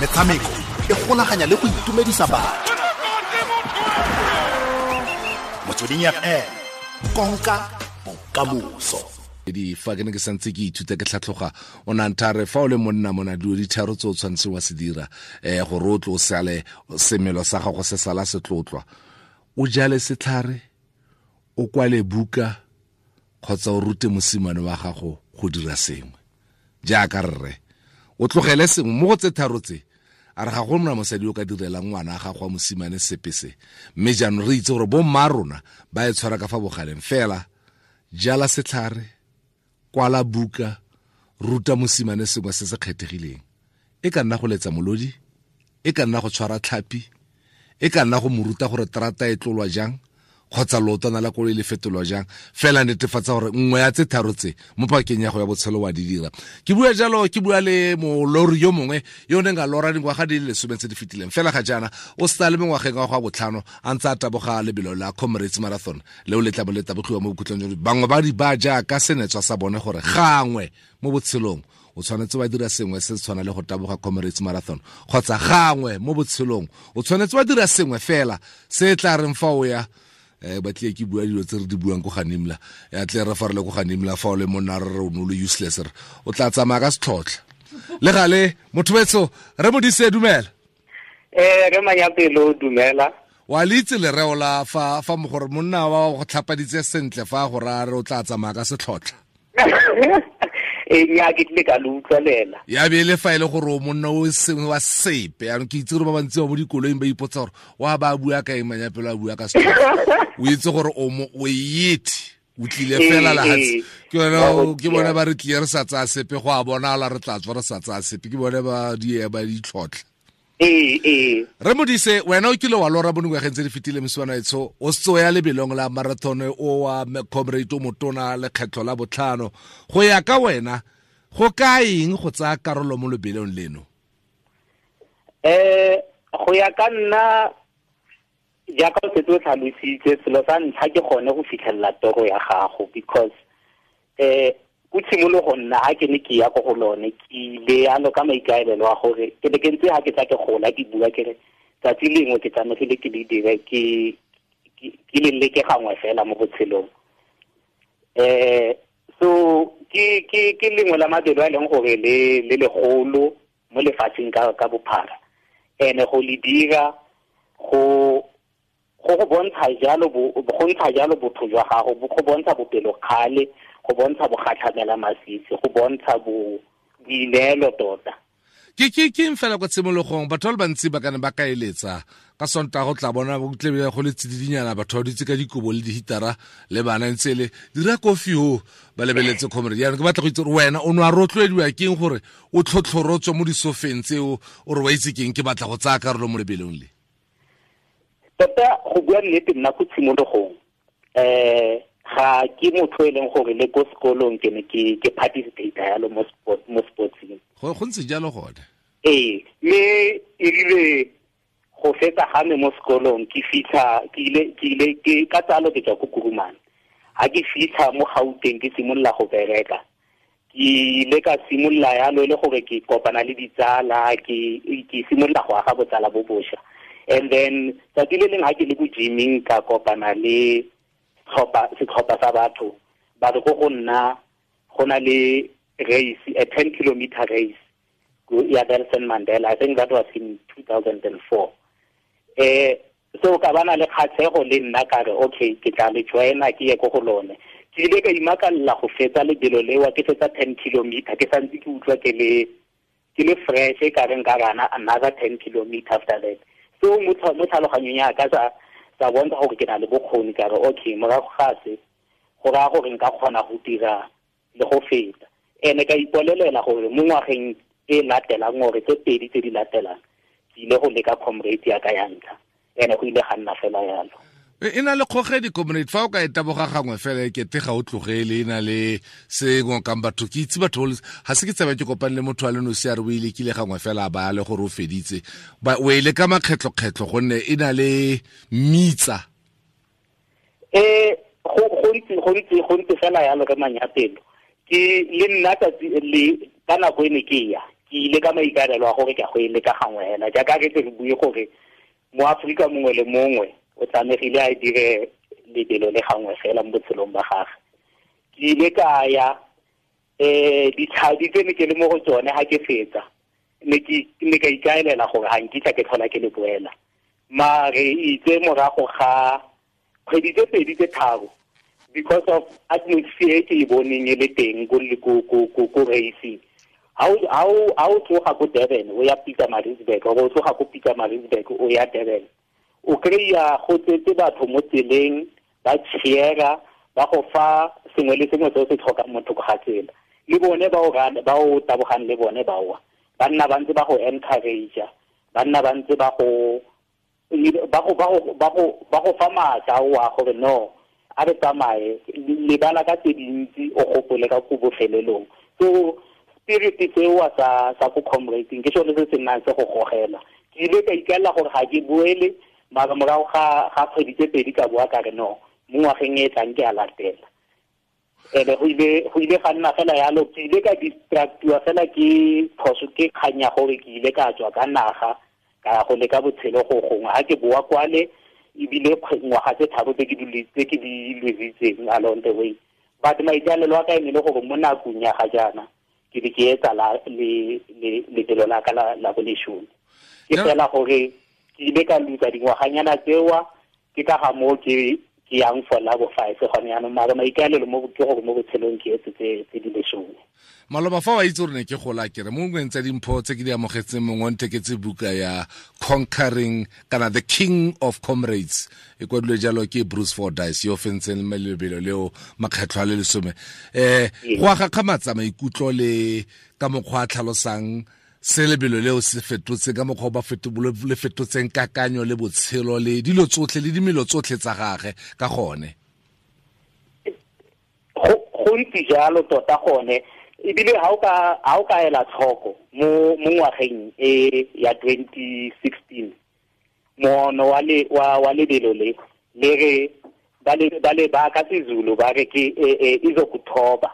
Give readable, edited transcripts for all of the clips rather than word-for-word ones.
Metshameko e golaganya le go itumedisa batho. Motsweding FM, konka bokamoso. Di fa ke ne ke santse ke ithuta ke tlhatlhoga, o ne a nthare fa o le monna mona dilo di tharo tse o tshwanetseng wa se dira, gore o tlo o sale semelo sa gago se sala se tlotlwa. O jale setlhare, o kwale buka, kgotsa o rute mosimane wa gago go dira sengwe. Jaaka rre, o tlogele sengwe mo go tse tharo tse, a re ga go nna mosadi o ka direlang ngwana a gago wa mosimane sepe se. Mme jaanong re itse gore bo mma rona ba e tshwara ka fa bogaleng fela. Jala setlhare, kwala buka, ruta mosimane sengwe se se kgethegileng. E ka nna go letsa molodi, e ka nna go tshwara tlhapi, e ka nna go mo ruta gore terata e tlolwa jang, kgotsa leotwana la koloi le fetolwa jang. Fela netefatsa gore nngwe ya tse tharo tse mo pakeng ya go ya botshelo wa di dira. Ke bua jalo, ke bua le molori yo mongwe yo o neng a lora dingwaga di le 10 tse di fetileng. Fela ga jaana o setse a le mengwageng wa go ya botlhano a ntse a taboga lebelo la Comrades Marathon leo le tla bo le tabogiwa mo bokhutlong jwa bangwe ba di ba jaaka senetswa sa bone gore gangwe mo botshelong o tshwanetse wa dira sengwe se se tshwana le go taboga Comrades Marathon, kgotsa gangwe mo botshelong o tshwanetse wa dira sengwe fela se tla reng fa o ya, ba tle ke bua dilo tse re di buang ko Ganimla, ya tle re fa re le ko Ganimla fa o le monna re re o ne o le useless, re o tla tsamaya ka setlhotlha. Le gale motho wetsho re Modise, dumela. Re Manyapelo, dumela. Wa le itse lereo la fa mogore monna wa go tlhapaditse sentle fa go raya re o tla tsamaya ka setlhotlha. Nya ke tlile ka le utlwelela. Ya be le fa e le gore o monna o sengwe wa sepe, yaanong ke itse gore ba bantsi ba mo dikoloing ba ipotsa gore wa ba bua ka eng, Manyapelo a bua ka setlhotlha. O itse gore o mo, o yete, o tlile fela lehatshe. Ke yone, ke bone ba re tlile re sa tsaya sepe, go a bonala re tla tswa re sa tsaya sepe, ke bone ba di ba ditlhotlha. Re Modise, wena o kile wa lora mo dingwageng tse di fetileng mosimane etsho, o setse o ya lebelong la marathon o wa Comrade o motona lekgetlho la botlhano. Go ya ka wena, go ka eng go tsaya karolo mo lebelong leno? Go ya ka nna, jaaka o setse o tlhalositse, selo sa ntlha ke gone go fitlhelela toro ya gago, because ko tshimologong nna ha ke ne ke ya ko go lone, ke ile yalo ka maikaelelo a gore ke ne ke ntse ha ke tla ke gola ke bua ke re tsatsi lengwe ke tlamegile ke le dire, ke le leke gangwe fela mo botshelong. So ke lengwe la mabelo a e leng gore le legolo mo lefatsheng ka bophara. Ene go le dira go go bontsha jalo bo, go ntsha jalo botho jwa gago, go bontsha bopelokgale, go bontsha bogatlhamela masisi, go bontsha boineelo tota. Ke eng fela kwa tshimologong batho ba le bantsi ba ka ne ba ka eletsa ka Sontaga go tla bona go tle go le tsididinyana, batho ba dutse ka dikobo le dihitara le bana ntse le dira kofi ho ba lebeletse Comrade. Jaanong ke batla go itse gore wena o ne wa rotloediwa ke eng gore o tlhotlhorotswe mo disofeng tseo, o re wa itse ke eng ke batla go tsaya karolo mo lebelong le? Tota go bua nnete nna ko tshimologong, ga ke motho e leng gore le ko sekolong ke ne ke participate yalo mo sport, mo sportsing. Go ntse jalo gone. Ee, mme e rile go fetsa ga me mo sekolong ke fitlha, ke ile, ke ile, ke ka tsalo ke tswa ko Kuruman. Ha ke fitlha mo Gauteng ke simolola go bereka. Ke ile ka simolola yalo e le gore ke kopana le ditsala, ke simolola go aga botsala bo bosha. And then tsatsi le leng ha ke le ko gyming ka kopana le setlhopha sa batho ba re go go nna go na le race, a 10 kilometer race ya Nelson Mandela. I think that was in 2004. So ka bana le kgatlhego le nna ka re okay, ke tla le joina ke ye ko go lone. Ke ile ka imakalla go fetsa lebelo lewa, ke fetsa 10 kilometer, ke santse ke utlwa ke le fresh, ka re nka rana another 10 kilometer after that. So mo tlhaloganyong ya ka sa bontsha gore ke na le bokgoni, ka re okay, morago ga se go raya gore nka kgona go dira le go feta. Ene ka ipolelela gore mo ngwageng e latelang, gore tse pedi tse di latelang, ke ile go leka Comrade ya ka ya ntlha. Ene go ile ga nna fela yalo. E na le kgogedi Comrade, fa o ka e taboga gangwe fela e kete ga o tlogele, e na le se ngokang batho. Ke itse batho ba le, ga se ke tsebe ke kopane le motho a le nosi a re o e lekile gangwe fela a ba le gore o feditse. Ba, o e leka makgetlho-kgetlho gonne e na le mitsa. Go ntse fela yalo re Manyapelo. Ke le nna tsatsi le ka nako e ne ke ya. Ke ile ka maikaelelo a gore ke a go e leka gangwe hela, jaaka re tle re bue gore mo Aforika mongwe le mongwe o tlamegile a dire lebelo le gangwe fela mo botshelong ba gagwe. Ke ile ka ya ditlhadi tse ne ke le mo go tsone ga ke fetsa, ne ke ka ikaelela gore ga nkitla ke tlhola ke le boela. Mare itse morago ga kgwedi tse pedi tse tharo, because of atmosphere e ke e boneng e le teng ko racing, ha o tloga ko Durban o ya Pietermaritzburg, or o tloga ko Pietermaritzburg o ya Durban, o kry-a go tsetse batho mo tseleng ba cheera, ba go fa sengwe le sengwe se o se tlhokang mo thoko ga tsela. Le bone ba o tabogang le bone ba wa, ba nna ba ntse ba go encourage, ba nna ba ntse ba go fa maatla wa gore no, a re tsamaye, lebala ka tse dintsi, o gopole ka ko bofelelong. So spirit seo sa ko comrading ke sone se se nnang se go gogela. Ke ile ka ikaelela gore ga ke boele, mara morago ga kgwedi tse pedi ka boa ka re no, mo ngwageng e tlang ke a latela. Ene go ile ga nna fela yalo, ke ile ka distractiwa fela ke phoso, ke kgang ya gore ke ile ka tswa ka naga ka ya go leka botshelo go gongwe. Ga ke boa kwale, ebile ngwaga tse tharo tse ke di lositseng along the way. But maikaelelo a ka e ne le gore mo nakong ya ga jaana ke be ke etsa lebelo la ka la boleshome. Ke fela gore ke ile ka lutsa dingwaganyana tsewa, ke ka ga moo ke yang for la bo 5 gone jaanong. Mara maikaelelo mo ke gore mo botshelong ke etse tse di lesome. Maloba fa wa itse gore ne ke gola kere mo nngweng tsa dimpho tse ke di amogetseng, mongwe o ntheketse buka ya Conquering kana The King of Comrades, e kwadilwe jalo ke Bruce Fordyce, yo fentseng lebelo leo makgetlho a le lesome. Go a gakgamatsa maikutlo le ka mokgwa a tlhalosang se lebelo leo se fetotse, ka mokgwa ba le fetotseng kakanyo le botshelo le dilo tsotlhe le dimelo tsotlhe tsa gagwe ka gone. Go ntse jalo tota gone, ebile ha o ka ela tlhoko mo ngwageng e ya 2016, moono wa lebelo le re ba le ba ka seZulu ba re ke izokuthoba,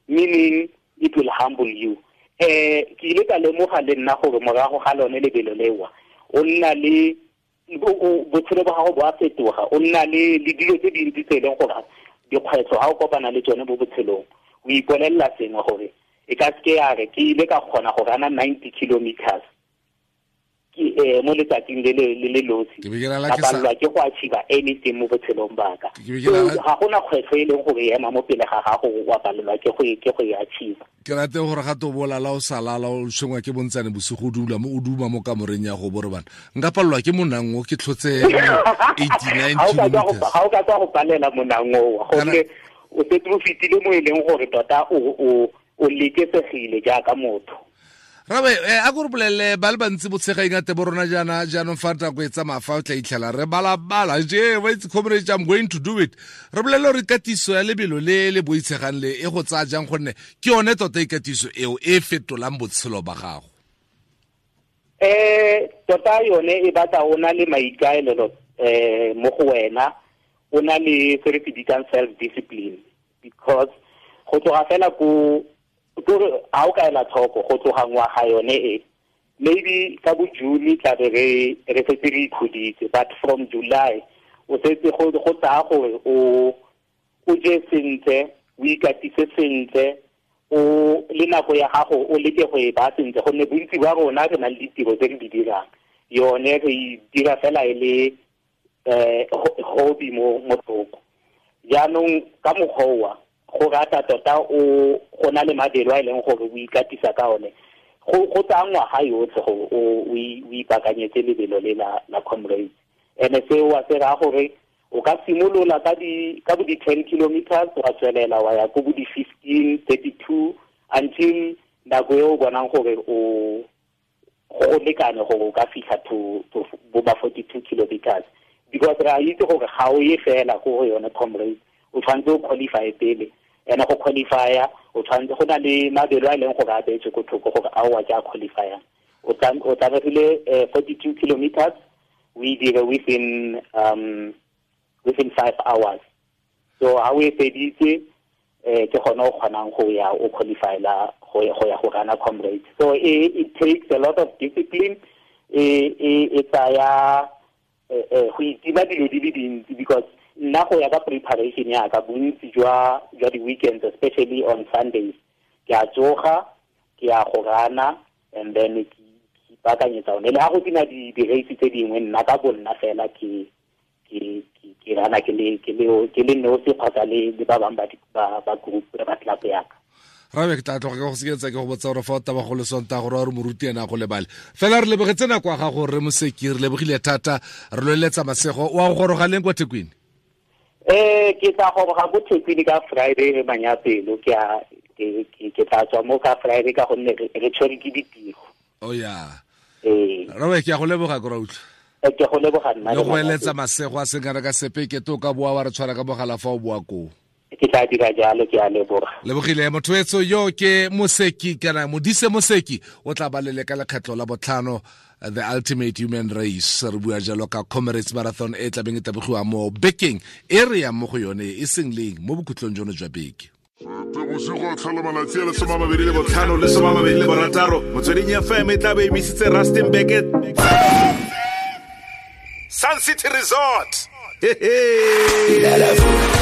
meaning it will humble you. Ke ile ka lemoga le nna gore morago ga lone lebelo lewa, o nna le botshelo ba gago bo a fetoga, o nna le dilo tse dintsi tse e leng gore dikgwetlho ga o kopana le tsone mo botshelong, o ipolelela sengwe gore e ka seke ya re ke ile ka kgona go rana 90 kilometers mo letsatsing le le losi, ka palelwa ke go achieve anything mo botshelong ba ka. Ga gona kgwetlho e leng gore e ema mo pele ga gago wa palelwa ke go e achieve. Ke rate gore ga to bolala o salala o tshwengwa ke bontsane bosigo o dula mo o duma mo kamoreng ya go bore bana, nka palelwa ke monang o ke tlhotse 89 kilometers. Ga o ka tswa go palela monang o, gonne o setse o fetile mo e leng gore tota o lekesegile jaaka motho. Rabe, a go re bolelele ba le bantsi botshega ingate bo rona jaana jaanong fa nako e tsamaya fa o tla itlhela re balabala je wa itse comrade, I'm going to do it. Re bolelele gore katiso ya lebelo le le boitshegang le e go tsaya jang, gonne ke yone tota ikatiso eo e fetolang botshelo ba gago. Tota yone e batla o na le maikaelelo mo go wena, o na le se re se bitsang self discipline, because go tloga fela ko ha o ka ela tlhoko go tloga ngwaga yone e, maybe ka bo June tla be re setse re ikhuditse, but from July o setse go tsaya gore o je sentle, o ikatise sentle, o le nako ya gago o leke go e ba sentle, gonne bontsi ba rona re na le ditiro tse re di dirang, yone re e dira fela e le hobby mo thoko. Jaanong ka mokgwa go rata tota o go na le mabelo a e leng gore o ikatisa ka one, go tsaya ngwaga yotlhe gore o ipaakanyetse lebelo le la comrades. Ene seo wa se raya gore o ka simolola ka bo di-10 kilometers, wa tswelela wa ya ko bo di-15, 32, until nako e o bonang gore o go lekane gore o ka fitlha to bo ba 42 kilometers, because re a itse gore ga o ye fela ko go yone comrades, o tshwanetse o qualify pele. Ene go qualifya o tshwanetse go na le mabelo a e leng gore a beetswe ko thoko gore a o a ke a qualifyang. O tlamegile 42 kilometers o e dire within 5 hours. So ha o e feditse ke gone o kgonang go ya o qualifyla Go ya go rana Comrades. So it takes a lot of discipline, e tsaya go itima dilo di le dintsi, because nna go ya ka preparation ya ka, bontsi jwa di-weekends, especially on Sundays, ke a tsoga, ke ya go rana, and then ke ipaakanyetsa one. Le ga go sena di-race tse dingwe, nna ka bo nna fela ke rana ke le nosi kgotsa le ba bangwe ba group, ba club yaka. Rabe, ke tla tloga ke go seketsa ke go botsa gore fa o taba go le Sontaga gore wa re moruti ena go lebale fela. Re lebogetse nako ya gago, re Moseki, re lebogile thata, re loeletsa masego. Wa go goroga leng kwa Thekwini? Ke tla goroga ko Thekwini ka Friday re manyapelo. Ke tla tswa mo ka Friday ka gonne re tshwere ke ditiro. Oh ya. Rabe, ke a go leboga, ke ra utlwa. Ke go leboga nna. Le go eletsa masego a seng kana ka sepe. Ke to ka boa wa re tshwara ka mogala fa o boa koo. Ke tla dira jalo, ke a leboga. Lebogile motho etso yo ke Moseki kana Modise Moseki, o tla ba lele ka lekgetlo la botlhano the ultimate human race. Re bua jalo ka Comrades Marathon e tlabeng e tabogiwa mo bekeng e re yang mo go yone, e seng leng, mo bokhutlong jono jwa beke. Bosigo tlhola malatsi a le 25 le 26, Motsweding FM e tla be emisitse Rustenburg Sun City Resort. Hey, hey.